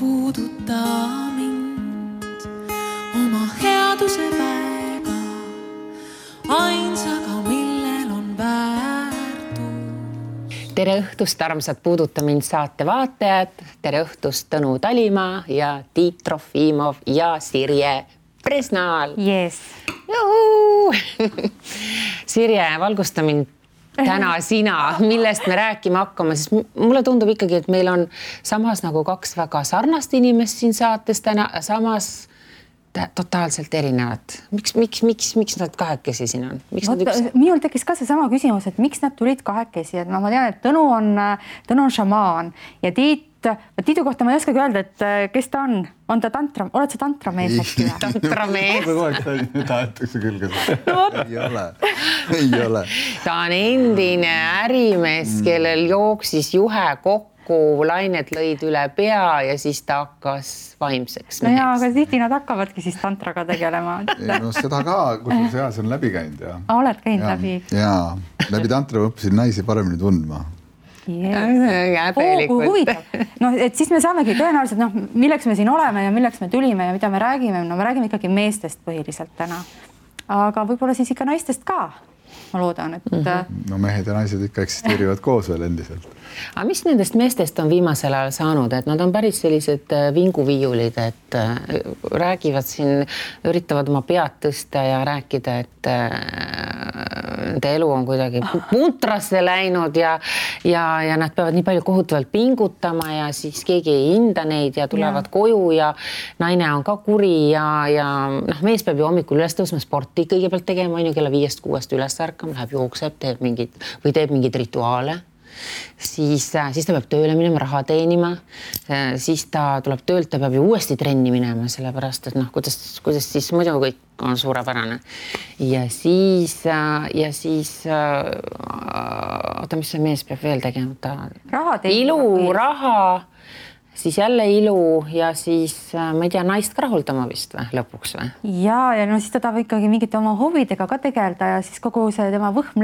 puuduta mind oma headuse väega, ainsaga, millel on väärtus. Tere õhtust, armsad Puuduta mind saate vaatajad. Tere õhtust Tõnu Talimaa ja Tiit Trofimov ja Sirje Presnaal. Yes. Sirje, valgusta mind täna sina, millest me rääkima hakkama, sest mulle tundub ikkagi, et meil on samas nagu kaks väga sarnast inimest siin saates täna, samas totaalselt erinevad. Miks nad kahekesi siin on? Minul tekkis ka see sama küsimus, et miks nad tulid kahekesi, et ma tean, et Tõnu on šamaan ja Tiidu kohta ma ei oskagi öelda, et kes ta on? On ta tantra? Oled sa tantramees äkki? Tantramees. Tahetakse küll ka seda. Ei ole. Ta on endine ärimees, kellel jooksis juhe kokku, lained lõid üle pea ja siis ta hakkas vaimseks meheks. No aga tihti nad hakkavadki siis tantraga tegelema. No seda ka, kus see on läbi käinud. Oled käinud läbi? Jaa, läbi tantra õppisin naisi paremini tundma. Huvitav. No, et siis me saamegi tõenäoliselt, milleks me siin oleme ja milleks me tulime ja mida me räägime. No me räägime ikkagi meestest põhiliselt täna. Aga võib-olla siis ikka naistest ka. Ma loodan, et... No mehed ja naised ikka eksisteerivad koos veel endiselt. Aga mis nendest meestest on viimasel ajal saanud? Et nad on päris sellised vinguviiulid, et räägivad siin, üritavad oma pead tõsta ja rääkida, et nende elu on kuidagi puntrasse läinud ja nad peavad nii palju kohutavalt pingutama ja siis keegi ei hinda neid ja tulevad koju ja naine on ka kuri ja mees peab ju hommikul üles tõusma sporti kõigepealt tegema, on ju kella 5-6 üles ärkama, läheb jookseb, teeb mingid rituaale. Siis ta peab tööle minema, raha teenima, siis ta tuleb töölt, ta peab ju uuesti trenni minema, sellepärast, et kuidas siis muidu kõik on suurepärane. Ja siis oota, mis see mees peab veel tegema? Ilu, raha, siis jälle ilu ja siis, ma ei tea, naist ka rahuldama vist või, lõpuks või? Ja no siis ta tahab ikkagi mingite oma huvidega ka tegelda ja siis kogu see tema võhm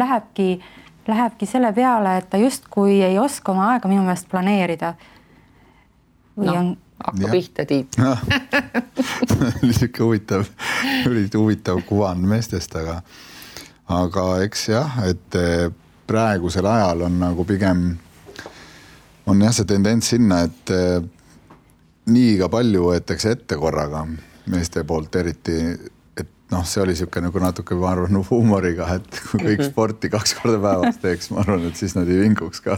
lähebki selle peale, et ta justkui ei oska oma aega minu meelest planeerida. Hakka pihta, Tiit. Siuke huvitav kuvan meestest, aga eks jah, et praegusel ajal on nagu pigem on jah see tendents sinna, et liiga palju võetakse ette korraga meeste poolt eriti. See oli siuke nagu natuke, ma arvan, huumoriga, et kui kõik sporti 2 korda päevas teeks, ma arvan, et siis nad ei vinguks ka.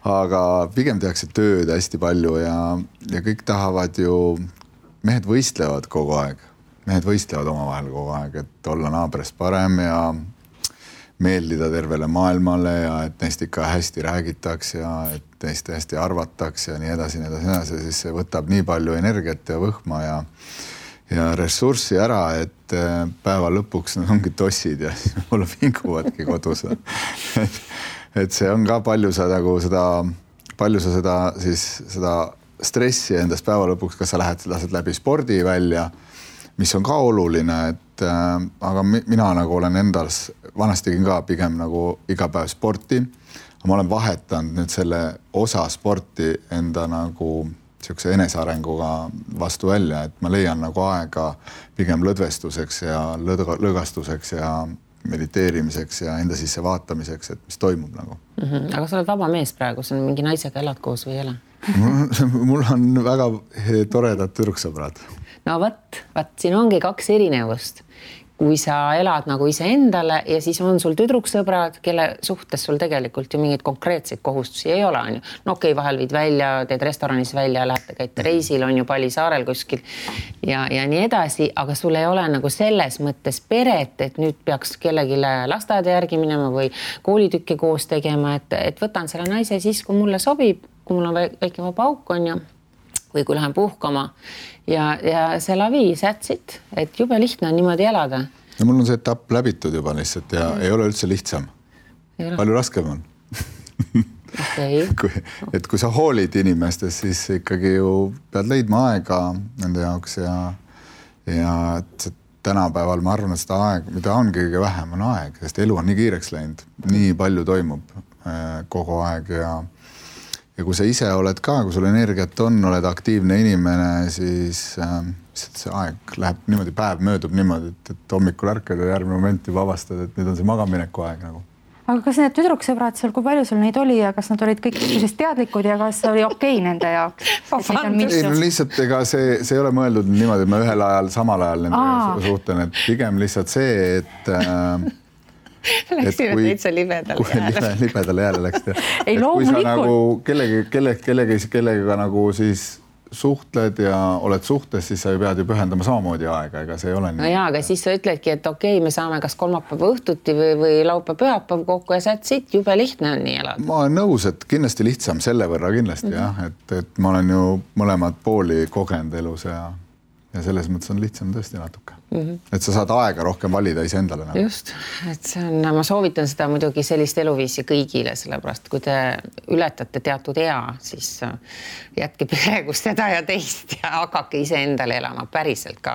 Aga pigem tehakse tööd hästi palju ja kõik tahavad ju, mehed võistlevad kogu aeg. Mehed võistlevad omavahel kogu aeg, et olla naabrist parem ja meeldida tervele maailmale ja et neist ikka hästi räägitaks ja et neist hästi arvataks ja nii edasi. Siis see võtab nii palju energiat ja võhma ja ressurssi ära, et päeva lõpuks nad ongi tossid ja võib-olla vinguvadki kodus. Et see on ka palju sa seda stressi endast päeva lõpuks, kas sa lased läbi spordi välja, mis on ka oluline, aga mina nagu olen endas, vanasti tegin ka pigem nagu iga päev sporti, aga ma olen vahetanud nüüd selle osa sporti enda nagu siukse enesearenguga vastu välja, et ma leian nagu aega pigem lõdvestuseks ja lõgastuseks ja mediteerimiseks ja enda sisse vaatamiseks, et mis toimub nagu. Aga sa oled vaba mees praegu, sa mingi naisega elad koos või ei ole? Mul on väga toredad tüdruksõbrad. No võt, siin ongi 2 erinevust. Kui sa elad nagu ise endale ja siis on sul tüdruksõbrad, kelle suhtes sul tegelikult ju mingeid konkreetseid kohustusi ei ole. On ju. No okei, vahel viid välja, teed restoranis välja, lähete käite reisil, on ju Pali saarel kuskil ja nii edasi, aga sul ei ole nagu selles mõttes peret, et nüüd peaks kellelegi lasteaeda järgi minema või koolitükke koos tegema, et võtan selle naise siis, kui mulle sobib, kui mul on väike vaba auk, on ju, või kui lähen puhkama ja see lavi sätsid, et jube lihtne on niimoodi elada. Ja mul on see etapp läbitud juba lihtsalt ja ei ole üldse lihtsam. Palju raskem on. Kui sa hoolid inimestest, siis ikkagi ju pead leidma aega nende jaoks ja tänapäeval ma arvan, et seda aeg, mida on kõige vähem, on aeg, sest elu on nii kiireks läinud, nii palju toimub kogu aeg ja ja kui sa ise oled ka, kui sul energiat on, oled aktiivne inimene, siis see aeg läheb niimoodi, päev möödub niimoodi, et hommikul ärkad ja järgmine moment juba avastad, et nüüd on see magamineku aeg nagu. Aga kas need tüdruksõbrad seal, kui palju sul neid oli ja kas nad olid kõik teadlikud ja kas oli okei nende jaoks? Ei, no lihtsalt ega see ei ole mõeldud niimoodi, et ma ühel ajal, samal ajal nendega suhtlen, et pigem lihtsalt see, et läksid täitsa libedale jääle läksid. Ei, loomulikult. Kui sa kellega nagu siis suhtled ja oled suhtes, siis sa pead ju pühendama samamoodi aega, ega see ei ole nii. No jaa, aga siis sa ütledki, et okei, me saame kas kolmapäeva õhtuti või laupäev-pühapäev kokku ja saad siit, jube lihtne on nii elada. Ma olen nõus, et kindlasti lihtsam selle võrra kindlasti jah, et ma olen ju mõlemad pooli kogenud elus ja selles mõttes on lihtsam tõesti natuke. Et sa saad aega rohkem valida iseendale. Nagu. Just, et see on, ma soovitan seda muidugi sellist eluviisi kõigile, sellepärast kui te ületate teatud ea, siis jätke praegu seda ja teist ja hakake iseendale elama päriselt ka.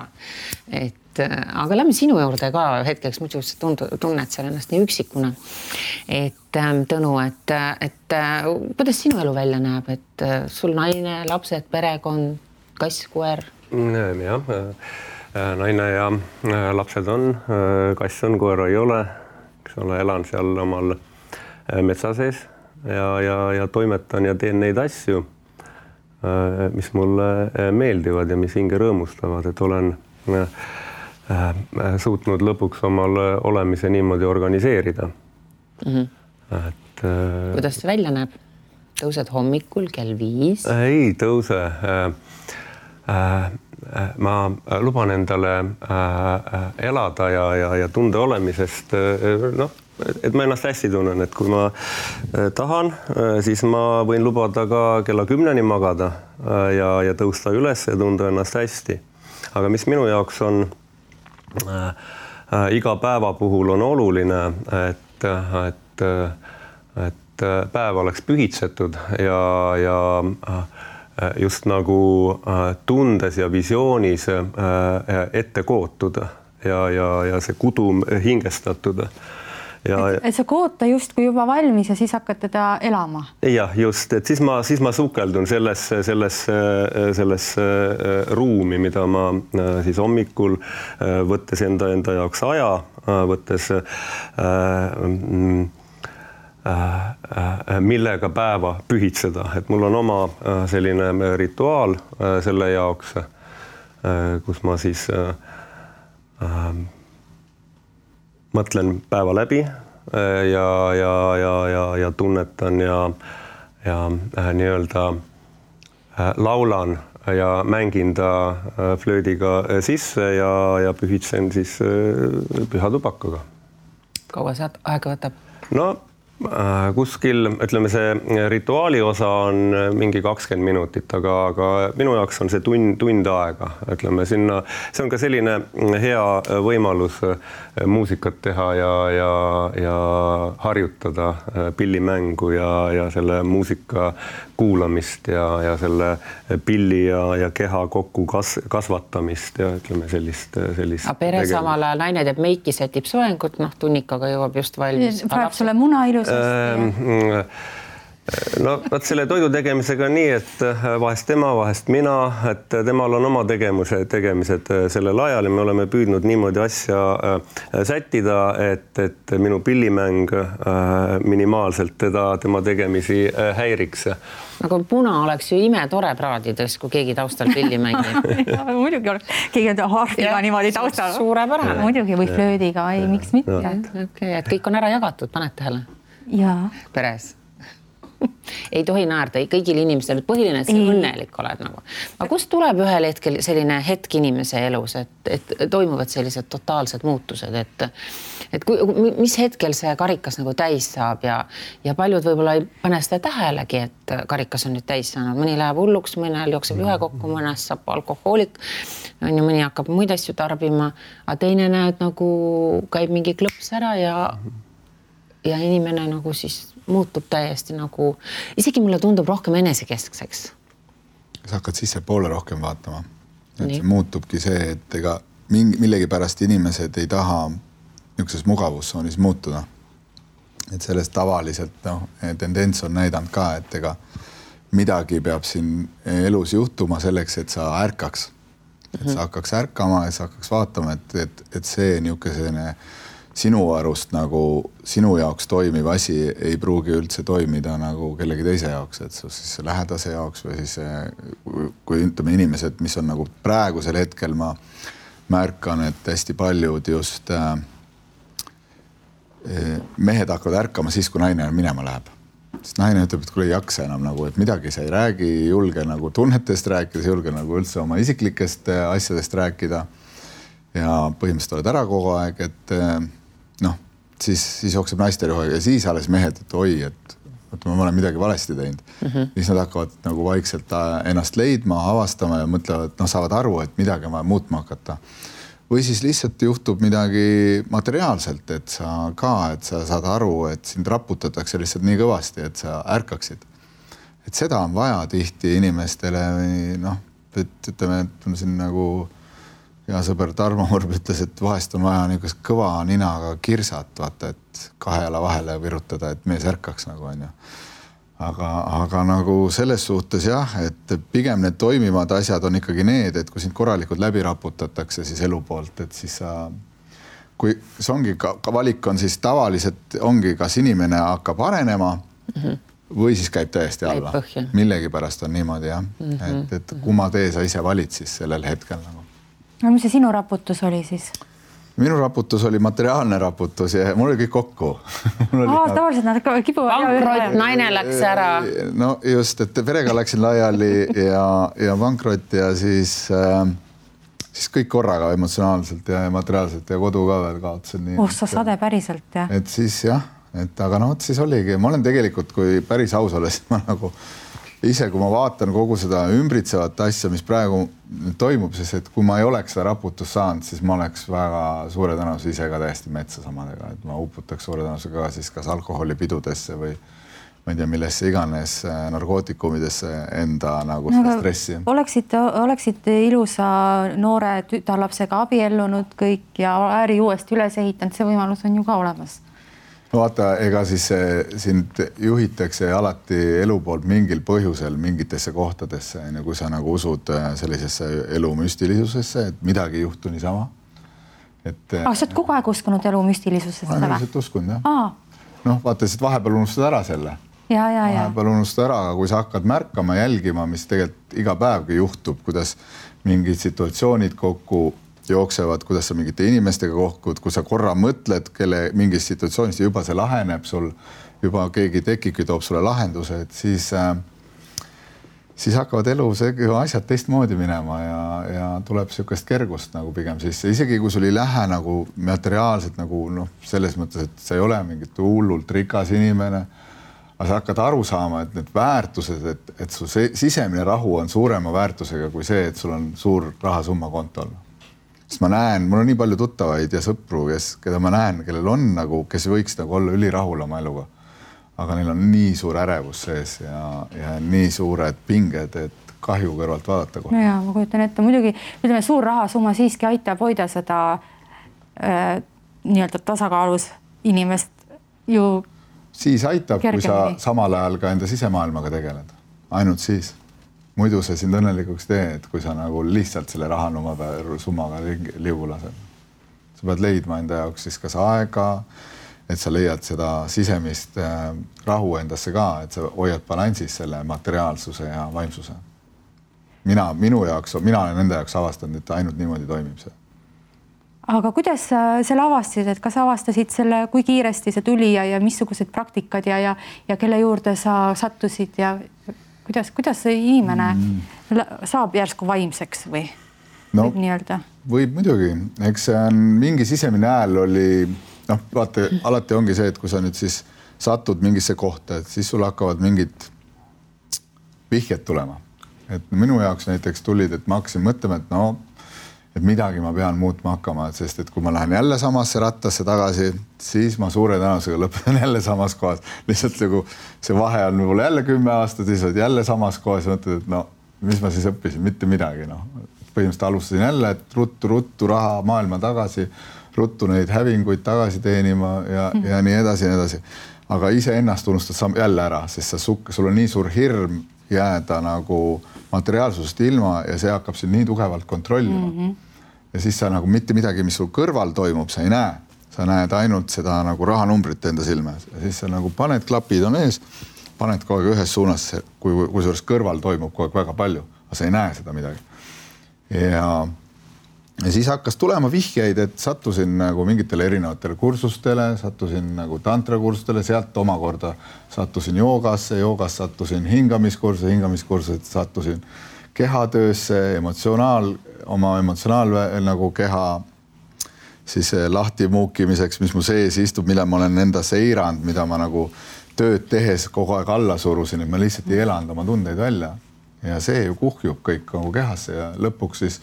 Aga lähme sinu juurde ka hetkeks, muidu sa tunned seal ennast nii üksikuna. Tõnu, et kuidas sinu elu välja näeb, et sul naine, lapsed, perekond, kass, koer? Jah, naine ja lapsed on, kass on, koera ei ole, elan seal omal metsa sees ja toimetan ja teen neid asju, mis mulle meeldivad ja mis hinge rõõmustavad, et olen suutnud lõpuks omal olemise niimoodi organiseerida. Kuidas see välja näeb? Tõused hommikul kell 5? Ei tõuse. Ma luban endale elada ja tunde olemisest, et ma ennast hästi tunnen, et kui ma tahan, siis ma võin lubada ka kella 10 magada ja tõusta üles ja tunda ennast hästi. Aga mis minu jaoks on iga päeva puhul on oluline, et päev oleks pühitsetud ja just nagu tundes ja visioonis ette kootud ja see kudum hingestatud. Et sa koota just kui juba valmis ja siis hakkad teda elama? Jah, just, et siis ma sukeldun selles ruumi, mida ma siis hommikul võttes enda jaoks aja, võttes millega päeva pühitseda, et mul on oma selline rituaal selle jaoks, kus ma siis mõtlen päeva läbi ja tunnetan ja nii-öelda laulan ja mängin ta flöödiga sisse ja pühitsen siis püha tubakaga. Kaua see aega võtab? No kuskil, ütleme, see rituaali osa on mingi 20 minutit, aga minu jaoks on see tund aega, ütleme sinna. See on ka selline hea võimalus muusikat teha ja harjutada pillimängu ja selle muusika kuulamist ja selle pilli ja keha kokku kasvatamist ja ütleme sellist. A pere samal ajal naine teeb meiki, sätib soengut, tunnikaga jõuab just valmis. Praegu sulle muna ilus. No, selle toidu tegemisega nii, et vahest tema, vahest mina, et temal on oma tegemised sellel ajal ja me oleme püüdnud niimoodi asja sättida, et minu pillimäng minimaalselt tema tegemisi häiriks. Aga puna oleks ju imetore praadides, kui keegi taustal pilli mängib. Muidugi oleks, keegi on harfiga niimoodi taustal. Suurepärane. Muidugi või flöödiga, ei, miks mitte. Okay, et kõik on ära jagatud, paned tähele? Jaa. Peres. Ei tohi naerda kõigil inimestel, põhiline, et sa õnnelik oled nagu. Aga kust tuleb ühel hetkel selline hetk inimese elus, et toimuvad sellised totaalsed muutused, et mis hetkel see karikas nagu täis saab ja paljud võib-olla ei pane seda tähelegi, et karikas on nüüd täis saanud. Mõni läheb hulluks, mõnel jookseb ühe kokku, mõnest saab alkohoolik, mõni hakkab muid asju tarbima, aga teine näed nagu käib mingi klõps ära ja inimene nagu siis muutub täiesti nagu, isegi mulle tundub rohkem enesekeskseks. Sa hakkad sisse poole rohkem vaatama. Et see muutubki see, et ega millegi pärast inimesed ei taha niisuguses mugavustsoonis muutuda. Et sellest tavaliselt tendents on näidanud ka, et ega midagi peab siin elus juhtuma selleks, et sa ärkaks. Et sa hakkaks ärkama ja sa hakkaks vaatama, et see niisugune sinu arust nagu sinu jaoks toimiv asi ei pruugi üldse toimida nagu kellegi teise jaoks, et siis lähedase jaoks või siis kui ütleme inimesed, mis on nagu praegusel hetkel ma märkan, et hästi paljud just mehed hakkavad ärkama siis, kui naine minema läheb. Sest naine ütleb, et kui ei jaksa enam nagu, et midagi sa ei räägi, julge nagu tunnetest rääkida, julge nagu üldse oma isiklikest asjadest rääkida ja põhimõtteliselt oled ära kogu aeg, et siis jookseb naiste rüha ja siis alles mehed, et oi, et ma olen midagi valesti teinud. Siis nad hakkavad nagu vaikselt ennast leidma, avastama ja mõtlevad, saavad aru, et midagi on vaja muutma hakata. Või siis lihtsalt juhtub midagi materiaalselt, et sa saad aru, et sind raputatakse lihtsalt nii kõvasti, et sa ärkaksid. Et seda on vaja tihti inimestele, et ütleme, et siin nagu hea sõber Tarmo Murb ütles, et vahest on vaja niisugust kõva ninaga kirsat, vaata, et 2 jala vahele virutada, et mees ärkaks nagu on ju. Aga nagu selles suhtes jah, et pigem need toimivad asjad on ikkagi need, et kui sind korralikult läbi raputatakse siis elu poolt, et siis kui see ongi ka valik on siis tavaliselt ongi, kas inimene hakkab arenema või siis käib täiesti alla. Millegi pärast on niimoodi jah, et kumma tee sa ise valid siis sellel hetkel nagu. No mis see sinu raputus oli siis? Minu raputus oli materiaalne raputus ja mul oli kõik kokku. Tavaliselt nad kipuvad. Pankrott, naine läks ära. No just, et perega läksin laiali ja pankrott ja siis kõik korraga emotsionaalselt ja materiaalselt ja kodu ka veel kaotasin. Sa sade päriselt jah? Et siis jah, aga siis oligi. Ma olen tegelikult, kui päris aus olen, siis ma nagu ise, kui ma vaatan kogu seda ümbritsevat asja, mis praegu toimub, siis et kui ma ei oleks seda raputust saanud, siis ma oleks väga suure tõenäosus ise ka täiesti metsa samadega, et ma uputaks suure tõenäosusega ka siis kas alkoholipidudesse või ma ei tea, millesse iganes narkootikumidesse enda nagu seda stressi. Oleksite ilusa noore tütarlapsega abiellunud kõik ja äri uuesti üles ehitanud, see võimalus on ju ka olemas. Vaata, ega siis sind juhitakse alati elu poolt mingil põhjusel mingitesse kohtadesse, kui sa nagu usud sellisesse elu müstilisusesse, et midagi ei juhtu niisama. Sa oled kogu aeg uskunud elu müstilisusesse? Ma olen lihtsalt uskunud, jah. Vaata, et vahepeal unustad ära selle. Vahepeal unustad ära, aga kui sa hakkad märkama, jälgima, mis tegelikult iga päevgi juhtub, kuidas mingid situatsioonid kokku jooksevad, kuidas sa mingite inimestega kohkud, kui sa korra mõtled, kelle mingis situatsioonis juba see laheneb sul, juba keegi tekibki, toob sulle lahenduse, et siis hakkavad elu asjad teistmoodi minema ja tuleb niisugust kergust nagu pigem sisse. Isegi kui sul ei lähe nagu materiaalselt nagu selles mõttes, et sa ei ole mingit hullult rikas inimene, aga sa hakkad aru saama, et need väärtused, et su sisemine rahu on suurema väärtusega kui see, et sul on suur rahasumma kontol. Sest ma näen, mul on nii palju tuttavaid ja sõpru, keda ma näen, kellel on nagu, kes võiks nagu olla ülirahul oma eluga. Aga neil on nii suur ärevus sees ja nii suured pinged, et kahju kõrvalt vaadata kohe. Ja ma kujutan ette, muidugi ütleme, suur rahasumma siiski aitab hoida seda nii-öelda tasakaalus inimest ju siis aitab, kergemini. Kui sa samal ajal ka enda sisemaailmaga tegeled. Ainult siis. Muidu see sind õnnelikuks tee, et kui sa nagu lihtsalt selle rahasummaga liugu lased. Sa pead leidma enda jaoks siis kas aega, et sa leiad seda sisemist rahu endasse ka, et sa hoiad balansis selle materiaalsuse ja vaimsuse. Mina olen enda jaoks avastanud, et ainult niimoodi toimib see. Aga kuidas selle avastasid, et kas avastasid selle, kui kiiresti see tuli ja missugused praktikad ja kelle juurde sa sattusid ja kuidas see inimene saab järsku vaimseks või võib nii öelda? Võib muidugi. Eks see on mingi sisemine hääl oli, vaata, alati ongi see, et kui sa nüüd siis satud mingisse kohta, et siis sul hakkavad mingid vihjed tulema. Et minu jaoks näiteks tulid, et ma hakkasin mõtlema, et midagi ma pean muutma hakkama, sest et kui ma lähen jälle samasse rattasse tagasi, siis ma suure tõenäosusega lõpetan jälle samas kohas. Lihtsalt nagu see vahe on mul jälle 10 aastat, siis oled jälle samas kohas ja mõtled, et mis ma siis õppisin, mitte midagi. Põhimõtteliselt alustasin jälle, et ruttu raha maailma tagasi, ruttu neid hävinguid tagasi teenima ja nii edasi. Aga ise ennast unustad jälle ära, sest sul on nii suur hirm jääda nagu materiaalsusest ilma ja see hakkab sind nii tugevalt kontrollima. Ja siis sa nagu mitte midagi, mis sul kõrval toimub, sa ei näe. Sa näed ainult seda nagu rahanumbrit enda silme. Ja siis sa nagu paned klapid on ees, paned kogu aeg ühes suunas, kui suures kõrval toimub kogu aeg väga palju, aga sa ei näe seda midagi. Ja siis hakkas tulema vihjeid, et sattusin nagu mingitele erinevatele kursustele, sattusin nagu tantrakursustele, sealt omakorda sattusin joogasse, joogast sattusin hingamiskursused sattusin kehatöösse, oma emotsionaal nagu keha siis lahti muukimiseks, mis mu sees istub, mille ma olen enda seirand, mida ma nagu tööd tehes kogu aeg alla surusin, et ma lihtsalt ei elanud oma tundeid välja. Ja see ju kuhjub kõik nagu kehasse ja lõpuks siis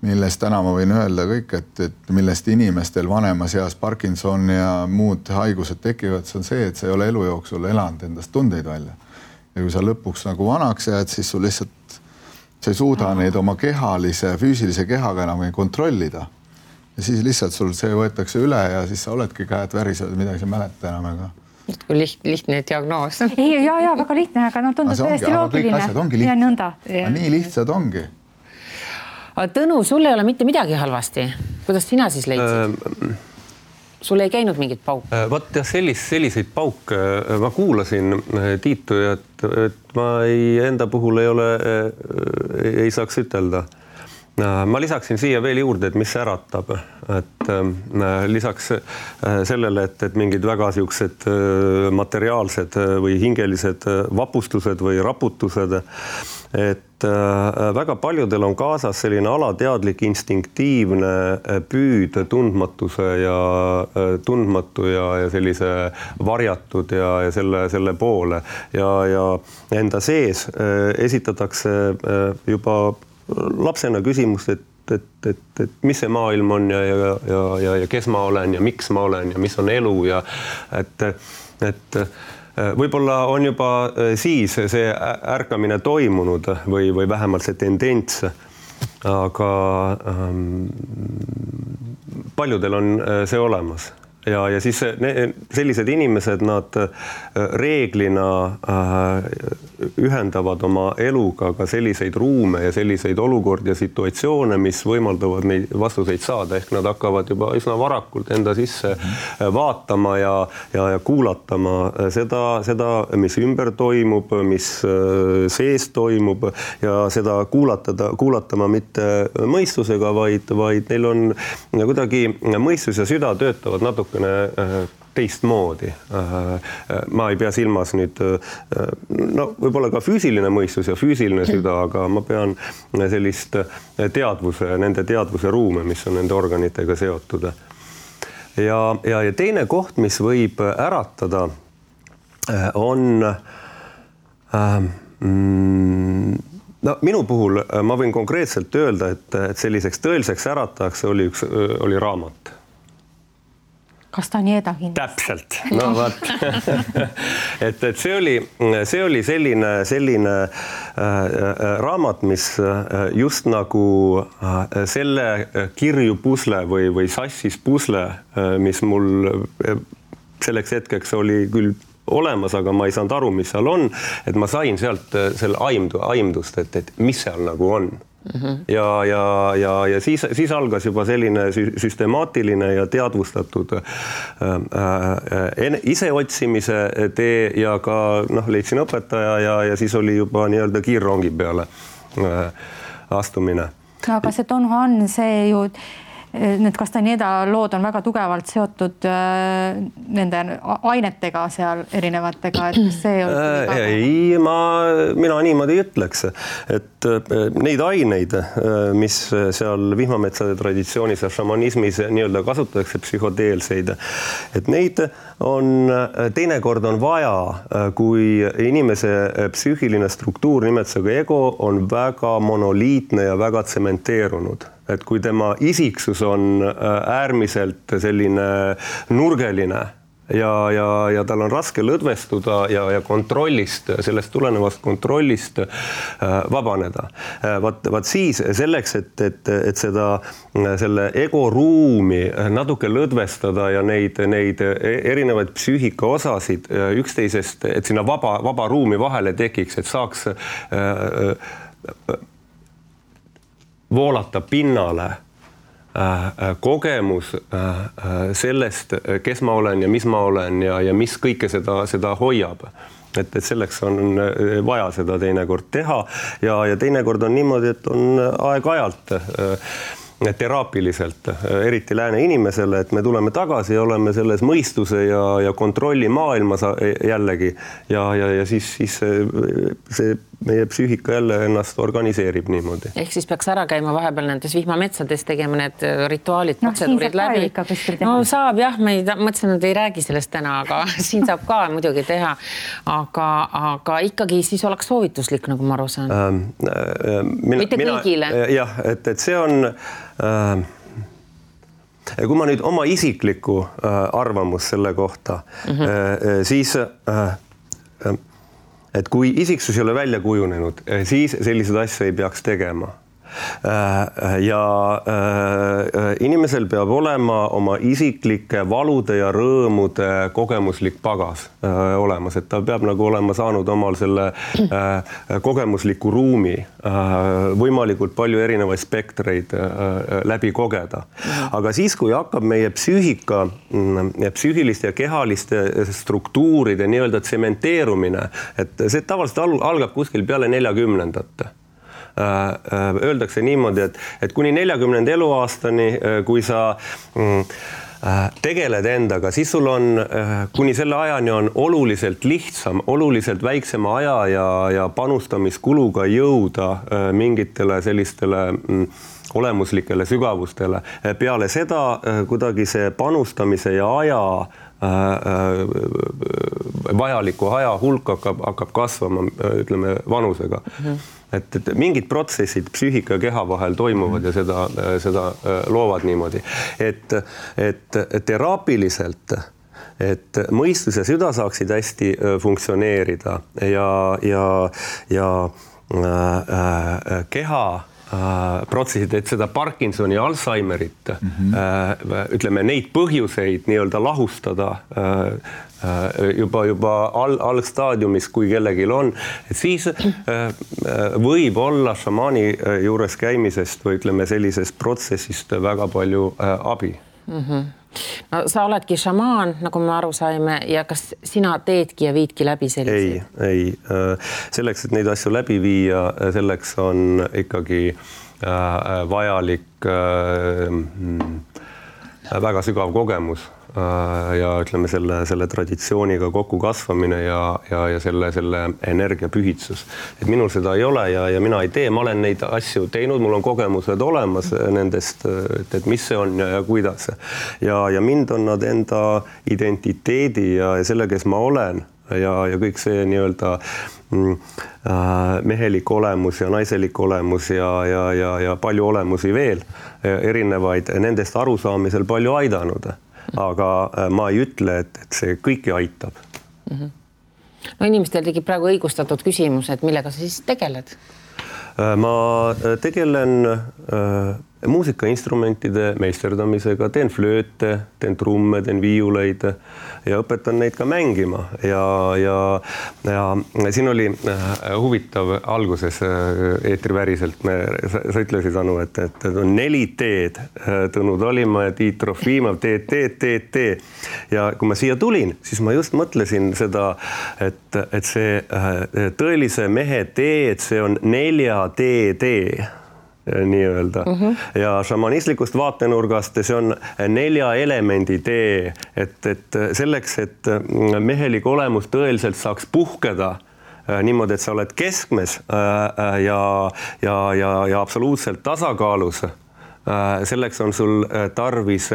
millest täna ma võin öelda kõik, et millest inimestel vanemas eas Parkinson ja muud haigused tekivad, see on see, et sa ei ole elu jooksul elanud endast tundeid välja. Ja kui sa lõpuks nagu vanaks jääd, siis sul lihtsalt, sa ei suuda neid oma kehalise, füüsilise kehaga enam kontrollida. Ja siis lihtsalt sul see võetakse üle ja siis sa oledki käed värised, midagi sa mäleta enam. Aga... Kui lihtne diagnoos. Ja, väga lihtne, aga tundub täiesti loogiline. Kõik asjad ongi lihtsad. Nii lihtsad ongi. Tõnu, sul ei ole mitte midagi halvasti. Kuidas sina siis leidsid? Sul ei käinud mingit pauk? Vaat jah, selliseid pauke. Ma kuulasin Tiitu, et ma enda puhul ei saaks ütelda. Ma lisaksin siia veel juurde, et mis äratab. Et lisaks sellele, et mingid väga siuksed materiaalsed või hingelised vapustused või raputused, et väga paljudel on kaasas selline alateadlik instinktiivne püüd tundmatuse ja sellise varjatud ja selle poole ja enda sees esitatakse juba lapsena küsimust, et mis see maailm on ja kes ma olen ja miks ma olen ja mis on elu ja et võib-olla on juba siis see ärkamine toimunud või vähemalt see tendents, aga paljudel on see olemas. Ja siis sellised inimesed, nad reeglina ühendavad oma eluga ka selliseid ruume ja selliseid olukordi ja situatsioone, mis võimaldavad neid vastuseid saada. Ehk nad hakkavad juba üsna varakult enda sisse vaatama ja kuulatama seda, mis ümber toimub, mis sees toimub ja seda kuulatama mitte mõistusega, vaid neil on kuidagi mõistus ja süda töötavad natuke teistmoodi. Ma ei pea silmas nüüd, võib-olla ka füüsiline mõistus ja füüsiline süda, aga ma pean sellist nende teadvuse ruume, mis on nende organitega seotud. Ja teine koht, mis võib äratada, on minu puhul ma võin konkreetselt öelda, et selliseks tõeliseks äratajaks oli raamat. Castañeda kindlasti. Täpselt. No vaat. et see oli selline raamat, mis just nagu selle kirju pusle või sassis pusle, mis mul selleks hetkeks oli küll olemas, aga ma ei saanud aru, mis seal on, et ma sain sealt selle aimdust, et mis seal nagu on. Ja siis algas juba selline süstemaatiline ja teadvustatud iseotsimise tee ja ka leidsin õpetaja ja siis oli juba nii-öelda kiirrongi peale astumine. No, aga see Don Juan, see ju need Castañeda lood on väga tugevalt seotud nende ainetega seal erinevatega, et see mina niimoodi ütleks, et neid aineid, mis seal vihmametsade traditsioonis ja šamanismis nii-öelda kasutatakse psühhodeelseid, et neid on teinekord on vaja, kui inimese psüühiline struktuur nimetusega ego on väga monoliitne ja väga tsementeerunud. Et kui tema isiksus on äärmiselt selline nurgeline ja tal on raske lõdvestuda ja kontrollist, sellest tulenevast kontrollist vabaneda. Vaat siis selleks, et selle egoruumi natuke lõdvestada ja neid erinevaid psüühika osasid üksteisest, et sinna vaba ruumi vahele tekiks, et saaks voolata pinnale kogemus sellest, kes ma olen ja mis ma olen ja mis kõike seda hoiab. Et selleks on vaja seda teinekord teha ja teinekord on niimoodi, et on aeg-ajalt teraapiliselt, eriti lääne inimesele, et me tuleme tagasi ja oleme selles mõistuse ja kontrolli maailmas jällegi ja siis see meie psüühika jälle ennast organiseerib niimoodi. Ehk siis peaks ära käima vahepeal nendes vihmametsades, tegema need rituaalid, protseduurid läbi. No saab jah, ma mõtlesin, et ei räägi sellest täna, aga siin saab ka muidugi teha. Aga ikkagi siis oleks soovituslik, nagu ma aru saan. Mitte kõigile. Jah, et see on... Kui ma nüüd oma isiklikku arvamus selle kohta, siis... Et kui isiksus ei ole välja kujunenud, siis sellised asju ei peaks tegema. Ja inimesel peab olema oma isiklike valude ja rõõmude kogemuslik pagas olemas, et ta peab nagu olema saanud omal selle kogemusliku ruumi, võimalikult palju erinevaid spektreid läbi kogeda. Aga siis, kui hakkab meie psüühika, psüühiliste ja kehaliste struktuuride nii-öelda tsementeerumine, et see tavaliselt algab kuskil peale 40. Öeldakse niimoodi, et kuni 40. eluaastani, kui sa tegeled endaga, siis sul on, kuni selle ajani on oluliselt lihtsam, oluliselt väiksema aja ja panustamiskuluga jõuda mingitele sellistele olemuslikele sügavustele. Peale seda kuidagi see panustamise ja aja vajaliku aja hulk hakkab kasvama, ütleme, vanusega. Et mingid protsessid psüühika ja keha vahel toimuvad ja seda loovad niimoodi. Et teraapiliselt, et mõistus ja süda saaksid hästi funktsioneerida ja keha protsessid, et seda Parkinsoni ja Alzheimerit, ütleme, neid põhjuseid nii-öelda lahustada juba algstaadiumis, kui kellegil on, et siis võib olla šamaani juures käimisest või ütleme sellisest protsessist väga palju abi. No, sa oledki šamaan, nagu me aru saime, ja kas sina teedki ja viidki läbi selliseid? Ei. Selleks, et neid asju läbi viia, selleks on ikkagi vajalik väga sügav kogemus ja ütleme selle traditsiooniga kokku kasvamine ja selle energiapühitsus. Et minul seda ei ole ja mina ei tee, ma olen neid asju teinud, mul on kogemused olemas nendest, et mis see on ja kuidas. Ja mind on nad enda identiteedi ja selle, kes ma olen ja kõik see nii-öelda mehelik olemus ja naiselik olemus ja palju olemusi veel erinevaid nendest arusaamisel palju aidanud. Aga ma ei ütle, et see kõiki aitab. No inimestel tegi praegu õigustatud küsimus, et millega sa siis tegeled? Ma tegelen muusikainstrumentide meisterdamisega, teen flööte, teen trumme, teen viiuleid ja õpetan neid ka mängima. Ja siin oli huvitav alguses eetriväriselt, sa ütlesid, Anu, et on 4 teed, Tõnu Talimaa ja Tiit Trofimov, teed. Ja kui ma siia tulin, siis ma just mõtlesin seda, et see tõelise mehe teed, see on 4 tee. Nii-öelda. Ja šamanistlikust vaatenurgast see on 4 elemendi tee, et selleks, et mehelik olemus tõeliselt saaks puhkeda niimoodi, et sa oled keskmes ja absoluutselt tasakaalus. Selleks on sul tarvis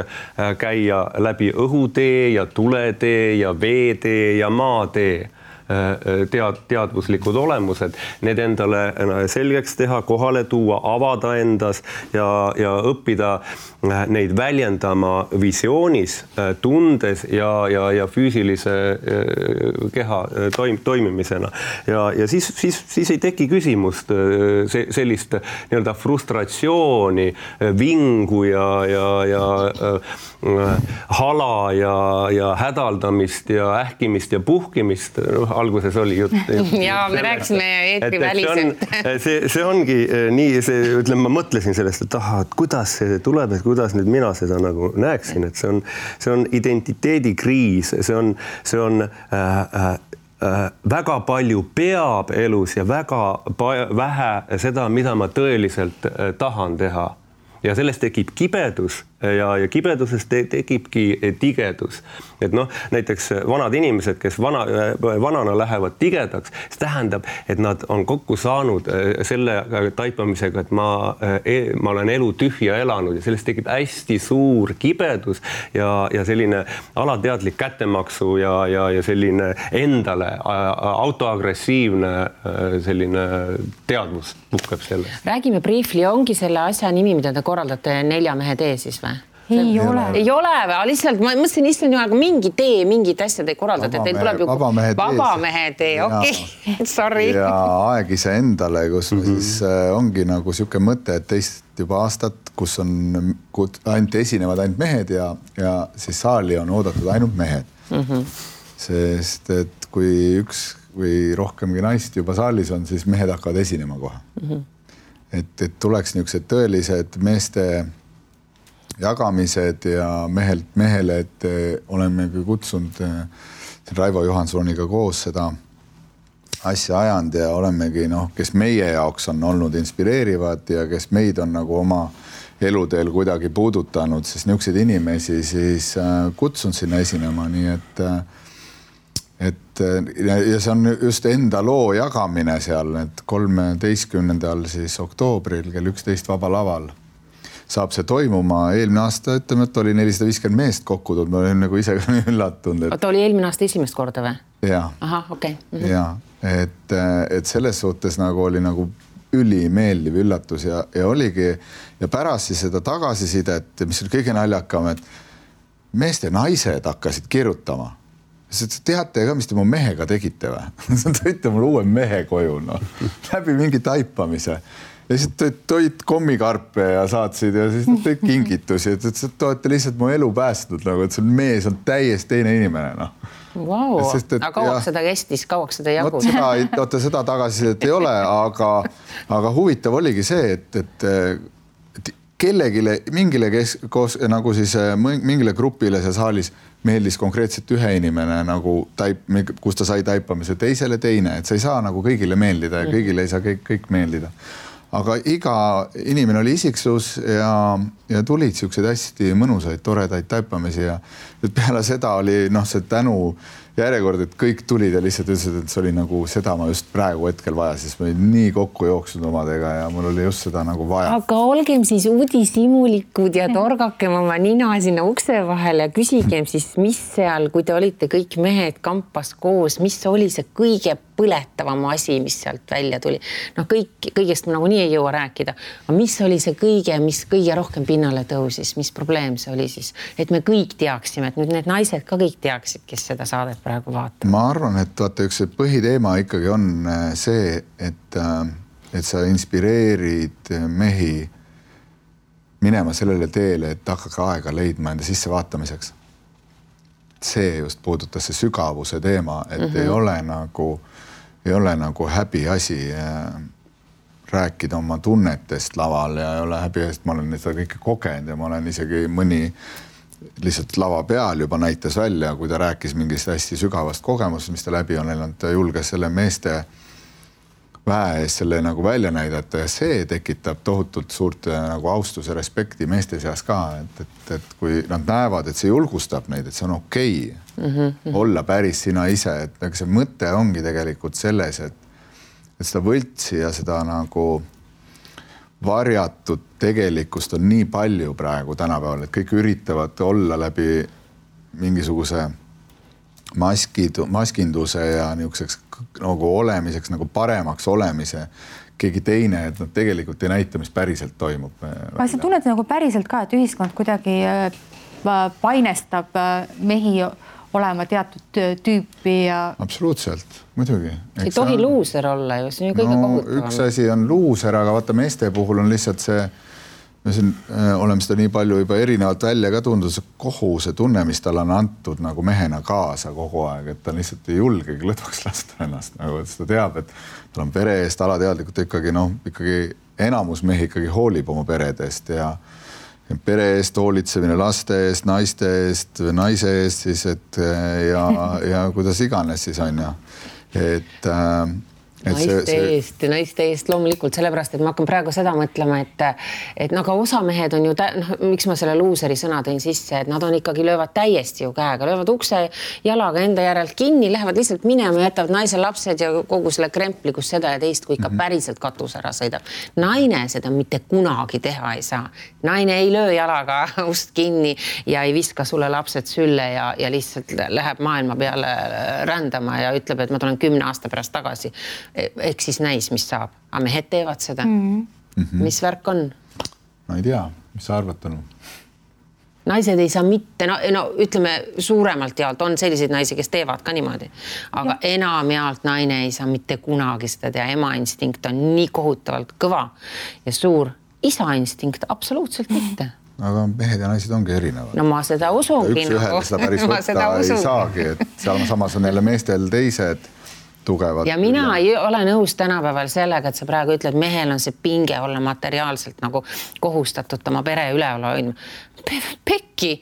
käia läbi õhutee ja tuletee ja veetee ja maatee. teadvuslikud olemused, need endale selgeks teha, kohale tuua, avada endas ja õppida neid väljendama visioonis, tundes ja füüsilise keha toimimisena. Ja siis ei teki küsimust sellist nii-öelda frustratsiooni, vingu ja hala ja hädaldamist ja ähkimist ja puhkimist. Alguses oli jutt. Ja me rääkisime eetriväliselt. See ongi nii, ütleme, ma mõtlesin sellest, et kuidas see tuleb, et kuidas nüüd mina seda nagu näeksin, et see on identiteedikriis, see on väga palju peab elus ja väga vähe seda, mida ma tõeliselt tahan teha. Ja sellest tekib kibedus ja kibedusest tekibki tigedus. Et näiteks vanad inimesed, kes vanana lähevad tigedaks, see tähendab, et nad on kokku saanud selle taipamisega, et ma olen elu tühja elanud ja sellest tekib hästi suur kibedus ja selline alateadlik kättemaksu ja selline endale autoagressiivne selline teadvus puhkeb selle. Räägime briefly, ongi selle asja nimi, mida te korraldate 4 mehe tee siis või? Ei ole. Ei ole või? Lihtsalt ma mõtlesin issand jumal, mingi tee, mingid asjad ei korraldate. Teil tuleb ju vabamehe tee, okei. Sorry. Ja aeg ise endale, kus siis ongi nagu siuke mõte, et teist juba aastat, kus on ainult esinevad ainult mehed ja siis saali on oodatud ainult mehed. Sest et kui üks või rohkemgi naist juba saalis on, siis mehed hakkavad esinema kohe. Et tuleks niisugused tõelised meeste jagamised ja mehelt mehele, et oleme kutsunud Raivo Johansoniga koos seda asja ajanud ja olemegi, kes meie jaoks on olnud inspireerivad ja kes meid on nagu oma eluteel kuidagi puudutanud, siis niisuguseid inimesi siis kutsun sinna esinema, nii et ja see on just enda loo jagamine seal, et 13. siis oktoobril kell 11 Vaba Laval saab see toimuma. Eelmine aasta, ütleme, et oli 450 meest kokku tulnud, ma olen nagu ise üllatunud. Oota, oli eelmine aasta esimest korda või? Jaa. Aha, okei. Jaa, et selles suhtes nagu oli nagu ülimeeldiv üllatus ja oligi ja pärast siis seda tagasisidet, mis oli kõige naljakam, et meeste naised hakkasid kirjutama. Teate ka, mis te mu mehega tegite või? Tõite mul uue mehe koju, läbi mingi taipamise. Ja siis toid kommikarpe ja saatsid ja siis tõid kingitusi, et te olete lihtsalt mu elu päästnud, nagu, et see mees on täiesti teine inimene. Wow. Aga kauaks seda kestis, kauaks seda jagus? Seda tagasisidet ei ole, aga huvitav oligi see, et kellegile, mingile nagu siis mingile grupile see saalis meeldis konkreetselt ühe inimene, nagu kus ta sai taipamise, teisele teine, et sa ei saa nagu kõigile meeldida ja kõigile ei saa kõik meeldida. Aga iga inimene oli isiksus ja tulid siukseid hästi mõnusaid, toredaid taipamisi ja peale seda oli see tänu järjekord, et kõik tulid ja lihtsalt ütlesid, et see oli nagu seda ma just praegu hetkel vaja, siis ma olin nii kokku jooksnud omadega ja mul oli just seda nagu vaja. Aga olgem siis uudishimulikud ja torgakem oma nina sinna ukse vahele ja küsigem siis, mis seal, kui te olite kõik mehed kampas koos, mis oli see kõige põletavam asi, mis sealt välja tuli? Kõigest ma nagu nii ei jõua rääkida. Aga mis oli see kõige, mis kõige rohkem pinnale tõusis? Mis probleem see oli siis? Et me kõik teaksime, et nüüd need naised ka kõik teaksid, kes seda saadet praegu vaatab. Ma arvan, et vaata, üks põhiteema ikkagi on see, et sa inspireerid mehi minema sellele teele, et hakake aega leidma enda sissevaatamiseks. See just puudutas see sügavuse teema, et ei ole nagu häbi asi rääkida oma tunnetest laval ja ei ole häbi, sest ma olen seda kõike kogenud ja ma olen isegi mõni lihtsalt lava peal juba näitas välja, kui ta rääkis mingist hästi sügavast kogemusest, mis ta läbi on elanud, ta julges selle meeste väe eest selle nagu välja näidata ja see tekitab tohutult suurt nagu austuse respekti meeste seas ka, et kui nad näevad, et see julgustab neid, et see on okei olla päris sina ise, et see mõte ongi tegelikult selles, et seda võltsi ja seda nagu varjatud tegelikkust on nii palju praegu tänapäeval, et kõik üritavad olla läbi mingisuguse maskinduse ja niisuguseks nagu olemiseks, nagu paremaks olemise keegi teine, et nad tegelikult ei näita, mis päriselt toimub. Aga sa tunned nagu päriselt ka, et ühiskond kuidagi painestab mehi olema teatud tüüpi ja... Absoluutselt, muidugi. Ei tohi luuser olla ju, see on ju kõige kohutavam. Üks asi on luuser, aga vaata meeste puhul on lihtsalt see, me siin oleme seda nii palju juba erinevalt välja ka tundus, kohuse tunne, mis tal on antud nagu mehena kaasa kogu aeg, et ta lihtsalt ei julgegi lõdvaks lasta ennast, nagu et ta teab, et tal on pere eest alateadlikult ikkagi, ikkagi enamus mehi ikkagi hoolib oma peredest ja pere eest hoolitsemine laste eest, naiste eest, naise eest siis, et ja kuidas iganes siis on ja, et naiste eest loomulikult, sellepärast, et ma hakkan praegu seda mõtlema, et nagu osa mehed on ju, miks ma selle luuseri sõna tõin sisse, et nad on ikkagi löövad täiesti ju käega, löövad ukse jalaga enda järelt kinni, lähevad lihtsalt minema ja jätavad naise lapsed ja kogu selle krempli, kus seda ja teist, kui ikka päriselt katus ära sõidab. Naine seda mitte kunagi teha ei saa. Naine ei löö jalaga ust kinni ja ei viska sulle lapsed sülle ja lihtsalt läheb maailma peale rändama ja ütleb, et ma tulen 10 aasta pärast tagasi. Ehk siis näis, mis saab. Aga mehed teevad seda. Mis värk on? No ei tea, mis sa arvad, Tõnu? Naised ei saa mitte, ütleme suuremalt jaolt on selliseid naisi, kes teevad ka niimoodi. Aga enam jaolt naine ei saa mitte kunagi seda teha. Ema instinkt on nii kohutavalt kõva ja suur. Isa instinkt absoluutselt mitte. Aga mehed ja naised ongi erinevad. No ma seda usungi. Üks ühele seda päris võtta ei saagi, et seal samas on jälle meestel teised tugevad. Ja mina ei ole nõus tänapäeval sellega, et sa praegu ütled, mehel on see pinge olla materiaalselt nagu kohustatud oma pere üleval hoidma. Pekki,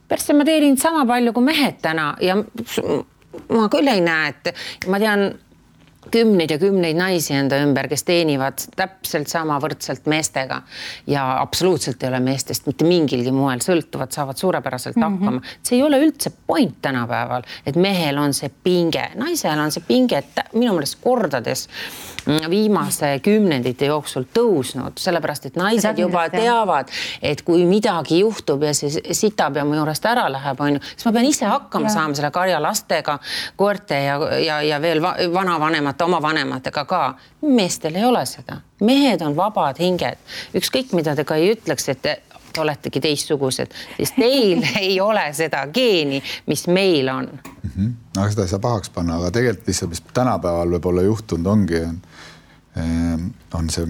persse ma teenin sama palju kui mehed täna ja ma küll ei näe, et ma tean kümneid ja kümneid naisi enda ümber, kes teenivad täpselt sama võrdselt meestega ja absoluutselt ei ole meestest mitte mingilgi moel sõltuvad, saavad suurepäraselt hakkama. See ei ole üldse point tänapäeval, et mehel on see pinge. Naisel on see pinge, et minu meelest kordades viimase kümnendite jooksul tõusnud, sellepärast, et naised juba teavad, et kui midagi juhtub ja see sitab ja mu juurest ära läheb, siis ma pean ise hakkama saama selle karja lastega, koerte ja veel vanavanemate, oma vanematega ka. Meestel ei ole seda. Mehed on vabad hinged. Ükskõik, mida te ka ei ütleks, et te oletegi teistsugused, siis teil ei ole seda geeni, mis meil on. Aga seda ei saa pahaks panna, aga tegelikult lihtsalt, mis tänapäeval võib-olla juhtunud on see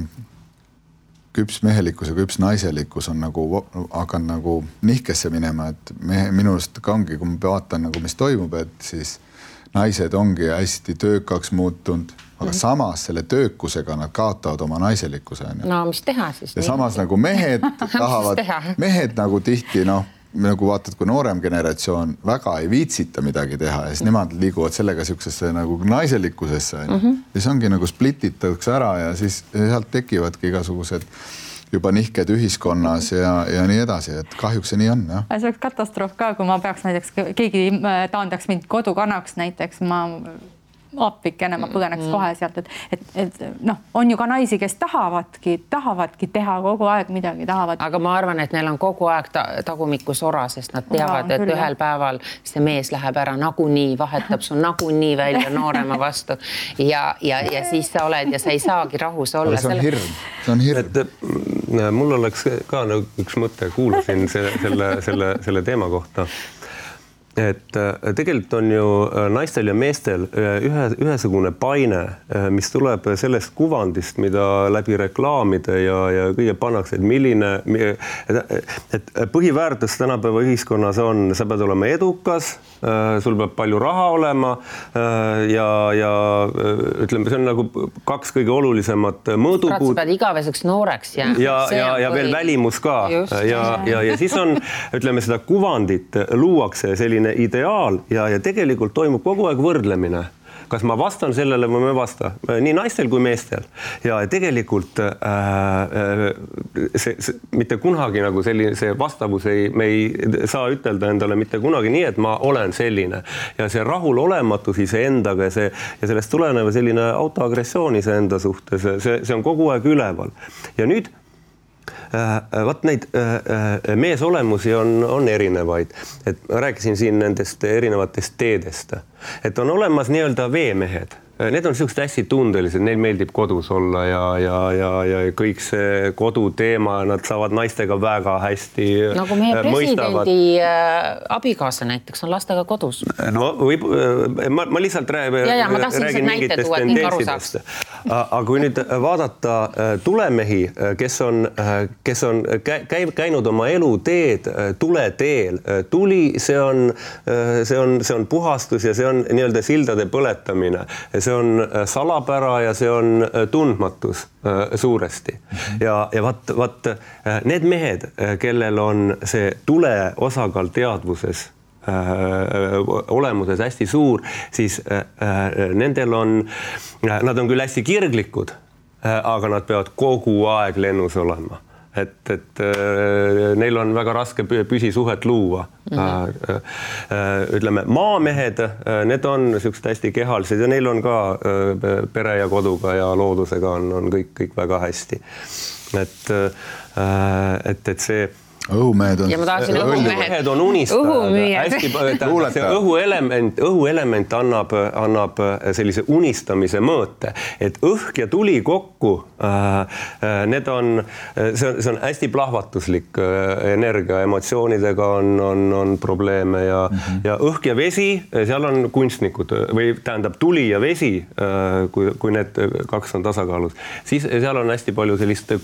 küps mehelikkus ja küps naiselikkus on nagu hakanud nagu nihkesse minema, et minust ka ongi, kui ma vaatan nagu, mis toimub, et siis naised ongi hästi töökaks muutunud, aga samas selle töökusega nad kaotavad oma naiselikkuse. No mis teha siis? Ja samas nagu mehed tahavad, mehed nagu tihti, nagu vaatad, kui noorem generatsioon väga ei viitsita midagi teha ja siis nemad liiguvad sellega siuksesse nagu naiselikkusesse. Ja see ongi nagu splititakse ära ja siis sealt tekivadki igasugused juba nihked ühiskonnas ja nii edasi, et kahjuks see nii on. Ja. See oleks katastroof ka, kui ma peaks näiteks, keegi taandaks mind kodukanaks näiteks, ma appikene, ma põgeneks kohe sealt, et on ju ka naisi, kes tahavadki teha kogu aeg midagi, tahavad. Aga ma arvan, et neil on kogu aeg tagumikku sora, sest nad teavad, et ühel päeval see mees läheb ära nagunii, vahetab sul nagunii välja noorema vastu ja siis sa oled ja sa ei saagi rahus olla. See on hirm. Mul oleks ka üks mõte, kuulasin selle teema kohta. Et tegelikult on ju naistel ja meestel ühesugune paine, mis tuleb sellest kuvandist, mida läbi reklaamide ja kõige pannakse, et milline, et põhiväärtus tänapäeva ühiskonnas on, sa pead olema edukas, sul peab palju raha olema ja ütleme, see on nagu kaks kõige olulisemat mõõdupuud. Sa pead igaveseks nooreks ja veel välimus ka. Ja siis on, ütleme, seda kuvandit luuakse selline ideaal ja tegelikult toimub kogu aeg võrdlemine. Kas ma vastan sellele või ma ei vasta? Nii naistel kui meestel. Ja tegelikult see mitte kunagi nagu see vastavus me ei saa ütelda endale mitte kunagi nii, et ma olen selline. Ja see rahulolematus iseendaga ja sellest tuleneva selline autoagressioon iseenda suhtes, see on kogu aeg üleval. Ja nüüd Vaat neid meesolemusi on erinevaid, et ma rääkisin siin nendest erinevatest teedest, et on olemas nii-öelda veemehed. Need on sellised hästi tundelised, neil meeldib kodus olla ja kõik see koduteema, nad saavad naistega väga hästi nagu meie presidendi abikaasa näiteks on lastega kodus. No võib, ma lihtsalt räägin mingitest tendentsidest. Aga kui nüüd vaadata tulemehi, kes on käinud oma eluteed tuleteel, tuli, see on puhastus ja see on nii-öelda sildade põletamine. See on salapära ja see on tundmatus suuresti. Ja vaat need mehed, kellel on see tule osakaal teadvuses olemuses hästi suur, siis nendel nad on küll hästi kirglikud, aga nad peavad kogu aeg lennus olema. Et neil on väga raske püsisuhet luua. Ütleme, maamehed, need on sellised hästi kehalised ja neil on ka pere ja koduga ja loodusega on kõik väga hästi. Et see õhumehed on. Ja ma tahaksin õhumehed on unistajad. Õhuelement annab sellise unistamise mõõte, et õhk ja tuli kokku, see on hästi plahvatuslik energia, emotsioonidega on probleeme ja õhk ja vesi, seal on kunstnikud või tähendab tuli ja vesi, kui need kaks on tasakaalus, siis seal on hästi palju sellist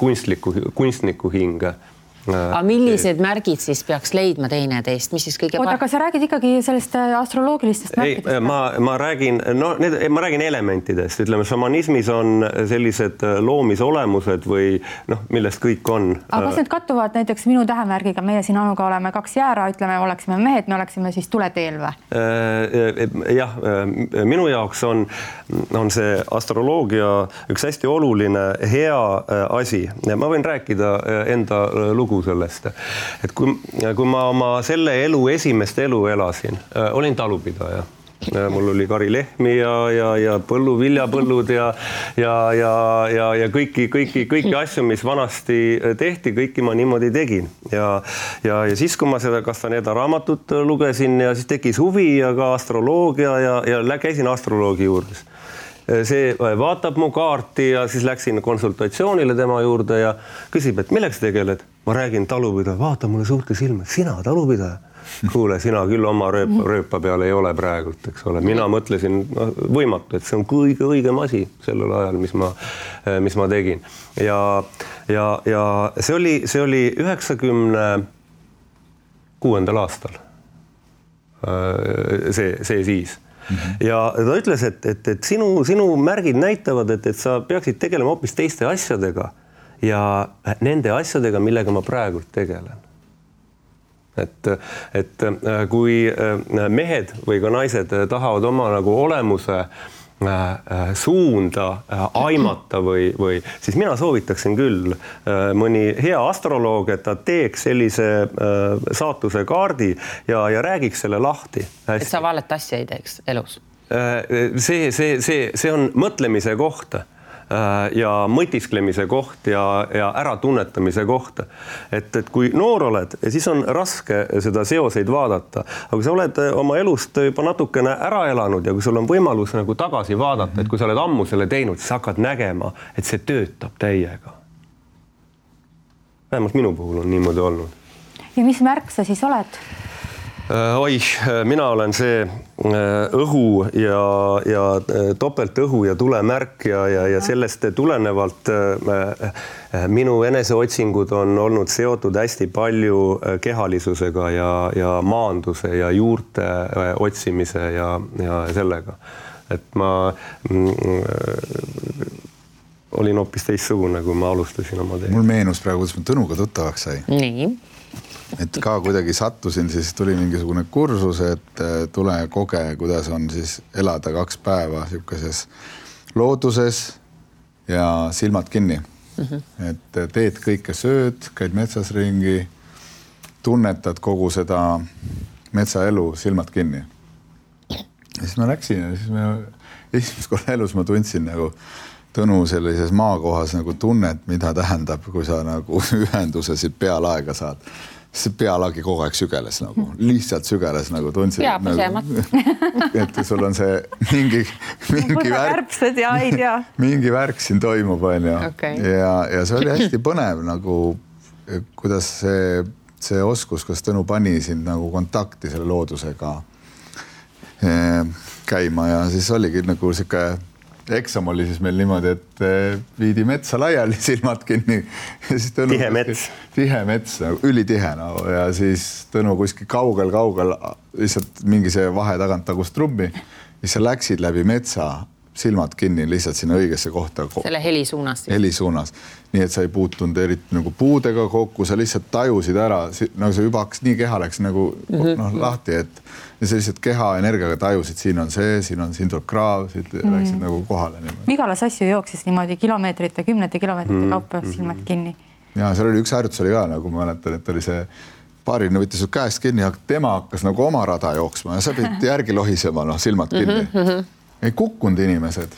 kunstniku hinge. Aga millised märgid siis peaks leidma teineteist? Mis siis kõige aga sa räägid ikkagi sellest astroloogilistest märkidest? Ma räägin elementidest. Ütleme, šamanismis on sellised loomisolemused või millest kõik on. Aga kas need kattuvad näiteks minu tähemärgiga? Meie siin Anuga oleme 2 jäära, ütleme, oleksime mehed, me oleksime siis tuleteel või? Jah, minu jaoks on see astroloogia üks hästi oluline hea asi. Ma võin rääkida enda lugu sellest, et kui ma oma selle esimest elu elasin, olin talupidaja. Mul oli karilehmi ja viljapõllud ja kõiki asju, mis vanasti tehti, kõiki ma niimoodi tegin. Ja siis, kui ma seda Castaneda raamatut lugesin ja siis tekkis huvi ja ka astroloogia ja käisin astroloogi juures. See vaatab mu kaarti ja siis läksin konsultatsioonile tema juurde ja küsib, et milleks tegeled? Ma räägin talupidaja, vaata mulle suurte silma, sina talupidaja? Kuule, sina küll oma rööpa peal ei ole praegult, eks ole. Mina mõtlesin võimatu, et see on kõige õigem asi sellel ajal, mis ma tegin. Ja see oli 96. aastal. See siis. Ja ta ütles, et sinu märgid näitavad, et sa peaksid tegelema hoopis teiste asjadega ja nende asjadega, millega ma praegult tegelen. Et kui mehed või ka naised tahavad oma nagu olemuse suunda aimata või siis mina soovitaksin küll mõni hea astroloog, et ta teeks sellise saatuse kaardi ja räägiks selle lahti. Et sa valet asja ei teeks elus? See on mõtlemise koht ja mõtisklemise koht ja äratunnetamise koht. Et kui noor oled, siis on raske seda seoseid vaadata. Aga kui sa oled oma elust juba natukene ära elanud ja kui sul on võimalus nagu tagasi vaadata, et kui sa oled ammu selle teinud, siis hakkad nägema, et see töötab täiega. Vähemalt minu puhul on niimoodi olnud. Ja mis märk sa siis oled? Mina olen see õhu ja topelt õhu ja tulemärk ja sellest tulenevalt minu eneseotsingud on olnud seotud hästi palju kehalisusega ja maanduse ja juurte otsimise ja sellega. Et ma olin hoopis teistsugune, kui ma alustasin oma teed. Mul meenus praegu, kuidas ma Tõnuga tuttavaks sai. Nii. Et ka kuidagi sattusin, siis tuli mingisugune kursus, et tule koge, kuidas on siis elada 2 päeva sellises looduses ja silmad kinni. Et teed kõike sööd, käid metsas ringi, tunnetad kogu seda metsaelu silmad kinni. Ja siis ma läksin ja siis esimest korda elus ma tundsin nagu Tõnu sellises maakohas nagu tunnet, mida tähendab, kui sa nagu ühenduse siit pealaega saad. See pealagi kogu aeg sügeles nagu, lihtsalt sügeles nagu tundsid. Et sul on see mingi värk, mingi värk siin toimub, on ju. Okay. Ja see oli hästi põnev nagu, kuidas see oskus, kas Tõnu pani sind nagu kontakti selle loodusega käima ja siis oligi nagu siuke eksam oli siis meil niimoodi, et viidi metsa laiali, silmad kinni. Ja siis Tõnu, tihe mets, ülitihe nagu, ja siis Tõnu kuskil kaugel, lihtsalt mingi see vahe tagant tagus trummi. Ja sa läksid läbi metsa, silmad kinni lihtsalt sinna õigesse kohta. Selle heli suunas. Heli suunas. Nii et sa ei puutunud eriti nagu puudega kokku, sa lihtsalt tajusid ära, nagu see juba hakkas nii keha läks nagu lahti, et ja sa lihtsalt keha energiaga tajusid, siin tuleb kraav, siit läksid nagu kohale. Vigala Sassi jooksis niimoodi kilomeetrite, 10 kilomeetrite kaupa silmad kinni. Ja seal oli üks harjutus oli ka, nagu ma mäletan, et oli see paarine võttis su käest kinni, tema hakkas nagu oma rada jooksma ja sa pidid järgi lohisema, silmad kinni. Ei kukkunud inimesed.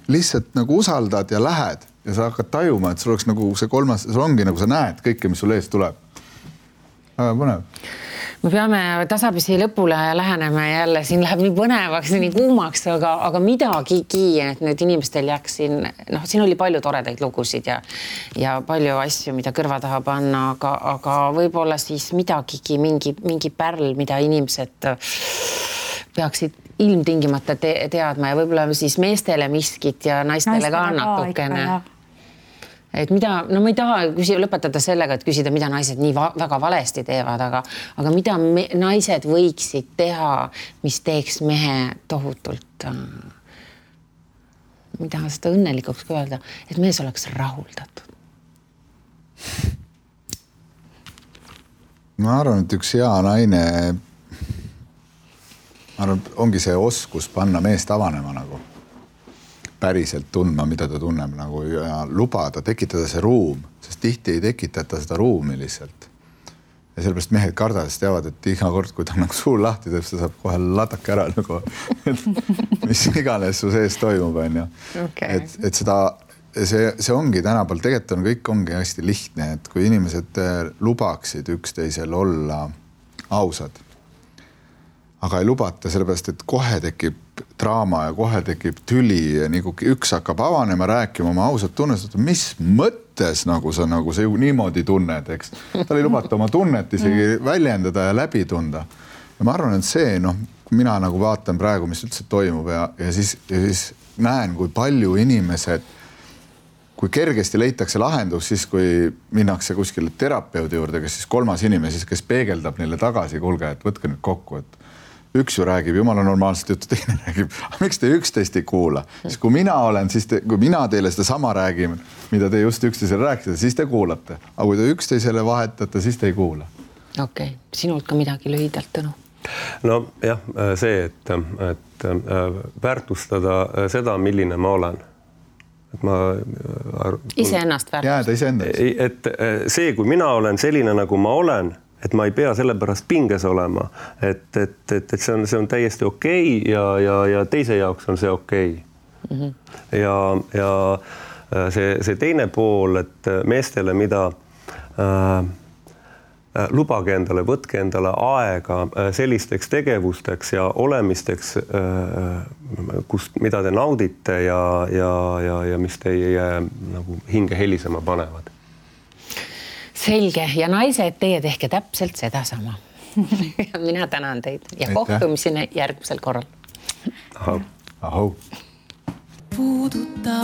Lihtsalt nagu usaldad ja lähed ja sa hakkad tajuma, et sul oleks nagu see kolmas, sul ongi nagu sa näed kõike, mis sul ees tuleb. Väga põnev. Me peame tasapisi lõpule lähenema jälle, siin läheb nii põnevaks, nii kuumaks, aga midagigi, et nüüd inimestel jääks siin, siin oli palju toredaid lugusid ja palju asju, mida kõrva taha panna, aga võib-olla siis midagigi, mingi pärl, mida inimesed peaksid ilmtingimata teadma ja võib-olla siis meestele miskit ja naistele ka natukene. Et mida, ma ei taha lõpetada sellega, et küsida, mida naised nii väga valesti teevad, aga mida naised võiksid teha, mis teeks mehe tohutult, mida seda õnnelikuks ka öelda, et mees oleks rahuldatud. Ma arvan, et üks hea naine ongi see oskus panna meest avanema nagu, päriselt tundma, mida ta tunneb nagu ja lubada, tekitada see ruum, sest tihti ei tekitata seda ruumi lihtsalt. Ja sellepärast mehed kardades teavad, et iga kord, kui ta nagu suu lahti teeb, ta saab kohe latake ära nagu, mis iganes su sees toimub, on ju. Okay. Et seda, see ongi tänapäeval, tegelikult kõik ongi hästi lihtne, et kui inimesed lubaksid üksteisel olla ausad, aga ei lubata sellepärast, et kohe tekib draama ja kohe tekib tüli ja nagu üks hakkab avanema, rääkima oma ausat tunnest, mis mõttes nagu sa nagu see niimoodi tunned, eks. Tal ei lubata oma tunnet isegi väljendada ja läbi tunda. Ja ma arvan, et see, kui mina nagu vaatan praegu, mis üldse toimub ja siis näen, kui palju inimesed, kui kergesti leitakse lahendus, siis kui minnakse kuskile terapeudi juurde, kes siis kolmas inimene, kes peegeldab neile tagasi, kuulge, et võtke nüüd kokku, et üks ju räägib, jumala normaalselt juttu, teine räägib, miks te üksteist ei kuula? Siis kui mina olen, kui mina teile seda sama räägime, mida te just üksteisele rääkisite, siis te kuulate. Aga kui te üksteisele vahetate, siis te ei kuula. Okei, sinult ka midagi lühidalt, Tõnu? No jah, see, et väärtustada seda, milline ma olen. Et ma iseennast väärtustada. Jääda iseennast. Et see, kui mina olen selline, nagu ma olen, et ma ei pea selle pärast pinges olema, et see on täiesti okei ja teise jaoks on see okei. Ja see teine pool, et meestele, mida lubage endale, võtke endale aega sellisteks tegevusteks ja olemisteks, mida te naudite ja mis teie nagu hinge helisema panevad. Selge ja naised, teie tehke täpselt seda sama. Mina tänan teid ja kohtumiseni järgmisel korral. Ahau. Puuduta